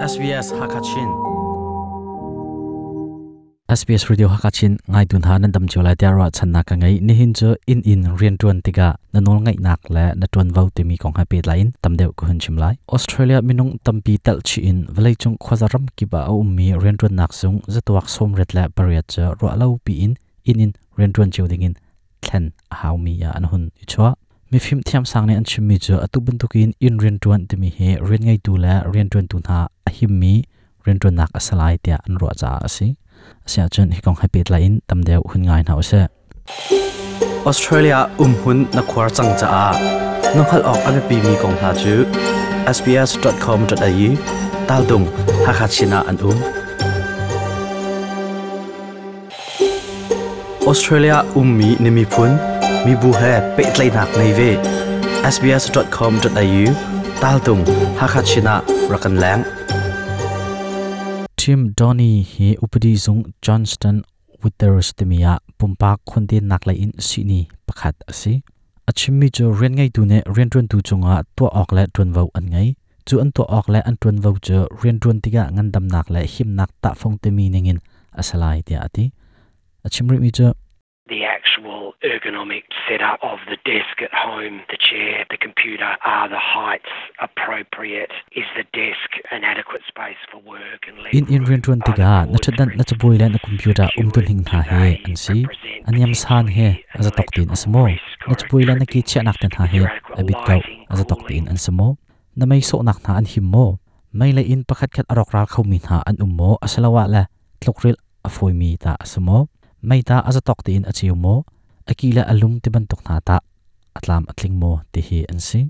SBS Hakachin SBS Radio Hakachin ngai tun ha nan dam chiu lai tia ra channa ka ngai nihin chu in in rian tuan tika na nol ngai nak le na tuan vo timi kong ha pet lain tamdeu ko hun chim lai Australia minung tampi tel chi in vlei chung khwazaram ki ba a ummi rian tuan nak sung zatuak som ret la pariat cha ro lo pi in in in rian tuan chiu ding in thlen a hau mi ya an hun i chua mi phim thiam sang ne an chim mi chu atu bantukin in rian tuan timi he rian ngai tu la rian tuan tu na a him mi rian tuan nak asalai tia an ro cha asi asia chun hi kong ha pet la in tamdeu hun ngai na ose Australia umhun na khuar chang cha a nokhal ok ame pi mi kong hna chu sbs.com.au tal dung Hakachina an um Australia ummi na miphun mibu he pehtlaihnak nei ve sbs.com.au tal tung Hakachina rakan leng Tim Donny hi upadi zung Johnston Withers timia pumpak khonte nak lai in sini pakhat ase achimmi chu rian ngai tu ne rian tuan tu chunga to ok le tuan vo an ngai chu an to ok le an tuan vo chu rian tuan tiga ngandam nak le him nak ta phong te mi ningin asalai tia ati achimri mi chu The actual ergonomic setup of the desk at home, the chair, the computer, are the heights appropriate? Is the desk an adequate space for work and leg in in room? rian tuan Are the tiga na cords thatdan na chabui le na computer secured? umtun hing Do tha he they an si represent aniam san he potentially an aza tok tin electrical asmo risk na or a chabui le na ki tripping che nak ten risk? tha Is he there adequate abit kau lighting, aza tok tin cooling? an samo na mei so nak na an him mo mei le in pakhat khat arok ral khau mi na an um mo asalawa la tlokril afoi mi ta asmo mei ta aza tok tin achiu mo akila alum te ban tok na ta atlam atling mo te hi an si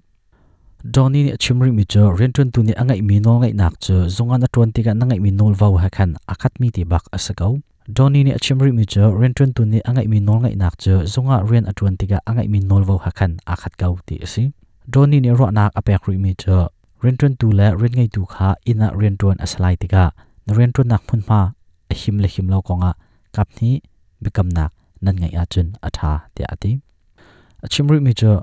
Donny ni chimri mi chu rian tuan tu ni angai mi nol ngai nak chu zunga na tuan ti ka na ngai mi nol vau ha khan akhat mi ti bak asakau Donny ni chimri mi chu rian tuan tu ni angai mi nol ngai nak chu zunga rian atuan ti ka angai mi nol vau ha khan akhat kau ti asi Donny ni ro nak apek ri mi chu rian tuan tu le rian ngai tu kha ina rian tuan asalai ti ka na rian tuan nak phun ma a him le him lo konga kap ni bikam nak nan ngai a chun atha ti ati achimri mi chu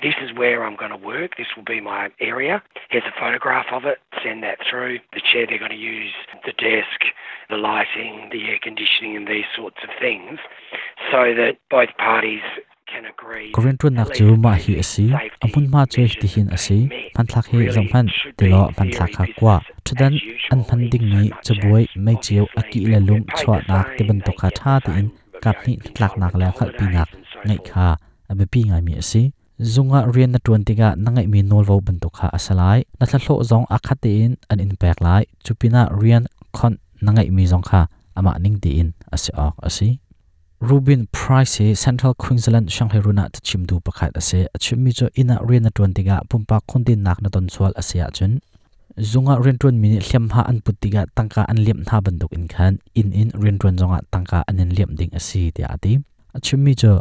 This is where I'm going to work. This will be my area. Here's a photograph of it. Send that through. The chair they're going to use, the desk, the lighting, the air conditioning, and these sorts of things, so that both parties can agree Korean that tuan at nak least chu the ma hi basic asi safety amun ma chu measures ti hin have asi been met. panthlak he Really, zong phan it should ti be lo in panthlak theory kha kwa business thudan as an usual phan in ding so mi much chabuai as mai chiu obviously aki le people lum get paid chwa the nak te same, ban to they kha get tha the ti in same, you kap know, ni tlak nak entitlement le to khal pi nak holidays and so ngai forth. kha abe pi ngai mi asi zunga rian na tuan tiga nangai mi nol vo ban to kha asalai na thla hlo zong akhat te in an in pek lai chupina rian khon nangai mi zong kha ama ning ti in ase ok asi Rubin Price hi Central Queensland Shanghai runa ta chimdu pakhat ase achimmi chu ina rian na tuan tiga pumpa khondin nak na ton sual ase a chun zunga rian tuan mi hliam ha an put tiga tangka an liam na banduk in khan in in rian tuan zonga tangka an in liam ding ase ti ati achimmi chu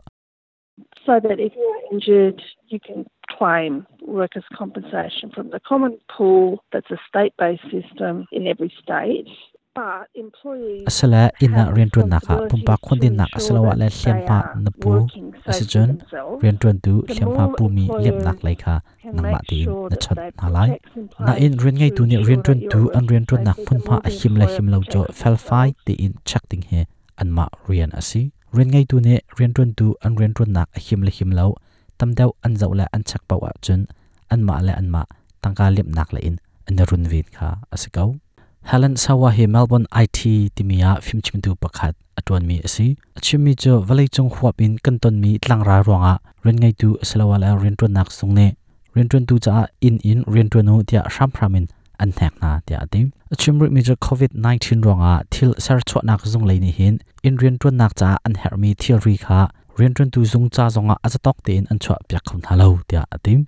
so that if you're injured, you can claim workers' compensation from the common pool. That's a state-based system in every state. But employees asala ina have rian tuan naka responsibilities pumpa to khondin nak ensure asalawa that le hliam they ha are na pu working ase safely chun themselves. rian tuan tu The hliam ha more pu mi liam nak employers lai kha can nangma make ti in sure na that chat they na lai put checks in na in place rian ngai to tu ni ensure rian that tuan you tu are an rian working tuan nak safely, phun the ma more a the him le employer him lo cho protects fel fai themselves. ti in check ding he an ma rian asi rian ngai tu ne rian tuan tu an rian tuan nak a him le him lo tam deuh an zau le an chak pawa chun an ma le an ma tangka liam nak le in an run vin kha asikau Helen Sawa hi Melbourne IT timia phimchimtu pakhat atuan mi asi achimi chu valei chung huap in kanton mi tlangra ronga ren ngai tu asalawa la ren tuan nak sung ne ren tuan tu cha in in ren tuan nu tia sham phramin an thek na tia ati achimri mi chu covid 19 ronga thil sar chwa nak zung leini hin in ren tuan nak cha an her mi thil ri kha ren tuan tu zung cha zonga azatok te in an chwa pyak khon halo tia ati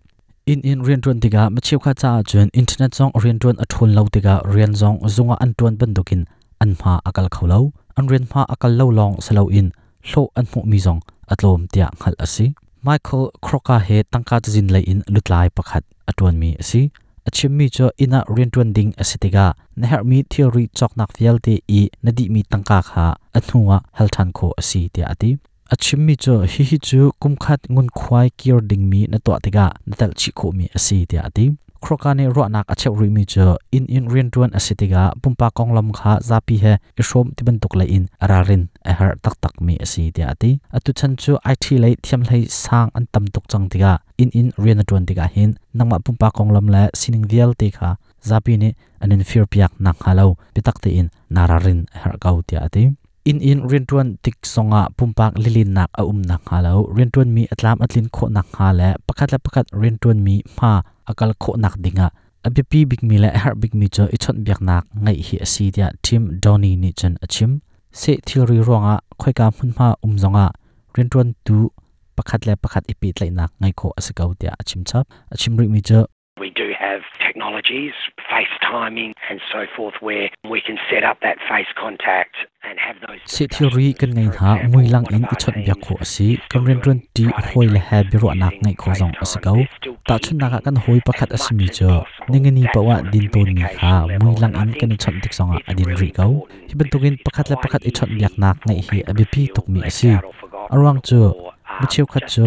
in in rian tuan tiga machiu kha cha chun internet zong rian tuan athun lo tiga rian zong zunga an tuan bandukin an ma akal kholo an rian ma akal lo long salo in hlo an hmu mi zong atlom tia ngal asi Michael Crocker he tangka jin lei in lutlai pakhat atuan mi asi achim mi cho ina rian tuan ding asitiga na her mi theory chok nak fial te i nadi mi tangka kha athnuwa halthan kho asi tia ati achim mi cho hi hi chu kumkhat ngun khwai kir ding mi na to tiga na tal chi kho mi asi tia ati Kroka nih ruahnak a cheuh rihmi cu inn in rianṭuan a si tikah pumpak konglam kha zapi he i hrawm ti bantuk lei in ralrin a herh taktakmi a si tiah a ti. Atu chan cu IT lei thiamhlei sang an tam tuk cang tikah inn in rian na ṭuan tikah hin nangmah pumpak konglam le sining vialte kha zapi nih an in firpiak nakhnga lo biatak tein naa ralrin a herh ko tiah a ti. Inn in rianṭuan tik zongah pumpak lilennak a um nakhnga lo rianṭuanmi a tlam a tlin khawh nakhnga le pakhat le pakhat rianṭuanmi hma a kal khawh nakding ah a biapi bikmi le a herh bikmi cu i chawnhbiaknak ngeih hi a si tiah Tim Downey nih cun a chim. Seh thilri ruangah khoika hmunhma um zongah rianṭuantu pakhat le pakhat i pehtlaihnak ngeih khawh a si ko tiah a chim chap. A chim rihmi cu We do have technologies, FaceTiming and so forth, where we can set up that face contact and have those Seh thilri kan ngei hna mui lang in i chawnhbiak khawh a si. Kan rianṭuan ṭi hawi le he biaruahnak ngeih khawh zong a si ko. Tahchunhnak ah kan hawi pakhat a simi cu ningani paoh ah din tawnmi kha mui lang in kan i chawnh tik zongah a din rih ko. Hi bantukin pakhat le pakhat i chawnhbiaknak ngeih hi a biapi tukmi a si. A ruang cu mi cheukhat cu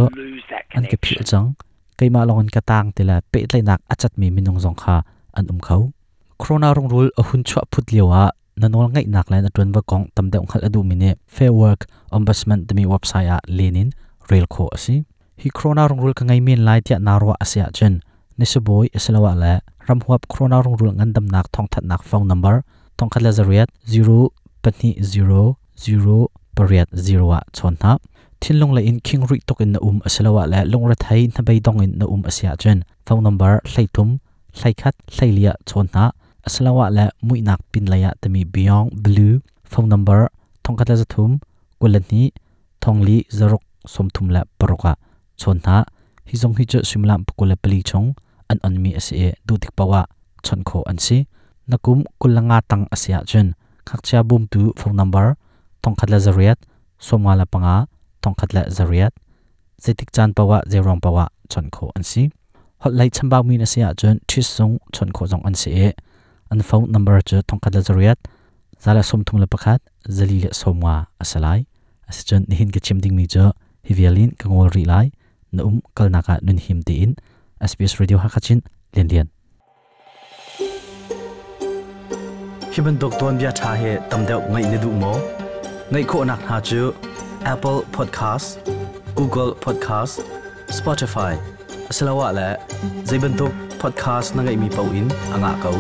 an ka philh cang. Keimah lawngin ka taang ti le pehtlaihnak a catmi minung zong kha an um kho. Corona rungrul a hun chuah phut lio ah na nawl ngeihnak le na ṭuanvo kong tam deuh hngalh a duhmi nih Fair Work Ombudsman timi website ah len in rel khawh a si. Hi corona rungrul ka ngei men lai tiah naa ruah a si ahcun nisibawi asiloah le ramhuap corona rungrul ngandamnak thawngthanhnak phone number 14 0 2 0 0 8 0 ah chawn hna. Thinlung lei in khing rih tuk in na um asiloah le lungrethei hnabeidong in na um a si ahcun phone number 33 hleikhat hleili ah chawn hna asiloah le muihnak pinlei ah timi Beyond Blue phone number 13 22 thongli zaruk 36 ah chawn hna. Hi zong hi cu suimilam 24 chung an onmi a si i duh tik paoh ah chawnh khawh an si. Na kum 25 tang a si ahcun ngakchia bawmtu phone number 1108 55 1108 zeitik caan paoh ah zeiruang paoh ah chawnh khawh an si. Holh lei chambaumi na si ahcun ṭhis zung chawnh khawh zong an si i an phone number cu 1108 131 4 le 50 a si lai. Asicun nihin ka chim dingmi cu hi vial in ka ngol rih lai. Na um kalnak ah nun him tein SBS Radio Hakha Chin Lian Lian. Hi bantuk tuanbia ṭha hi tam deuh ngaih na duh maw? Ngaih khawhnak hna cu Apple Podcast, Google Podcast, Spotify asiloah le zei bantuk podcast na ngeihmi paoh in a ngah ko.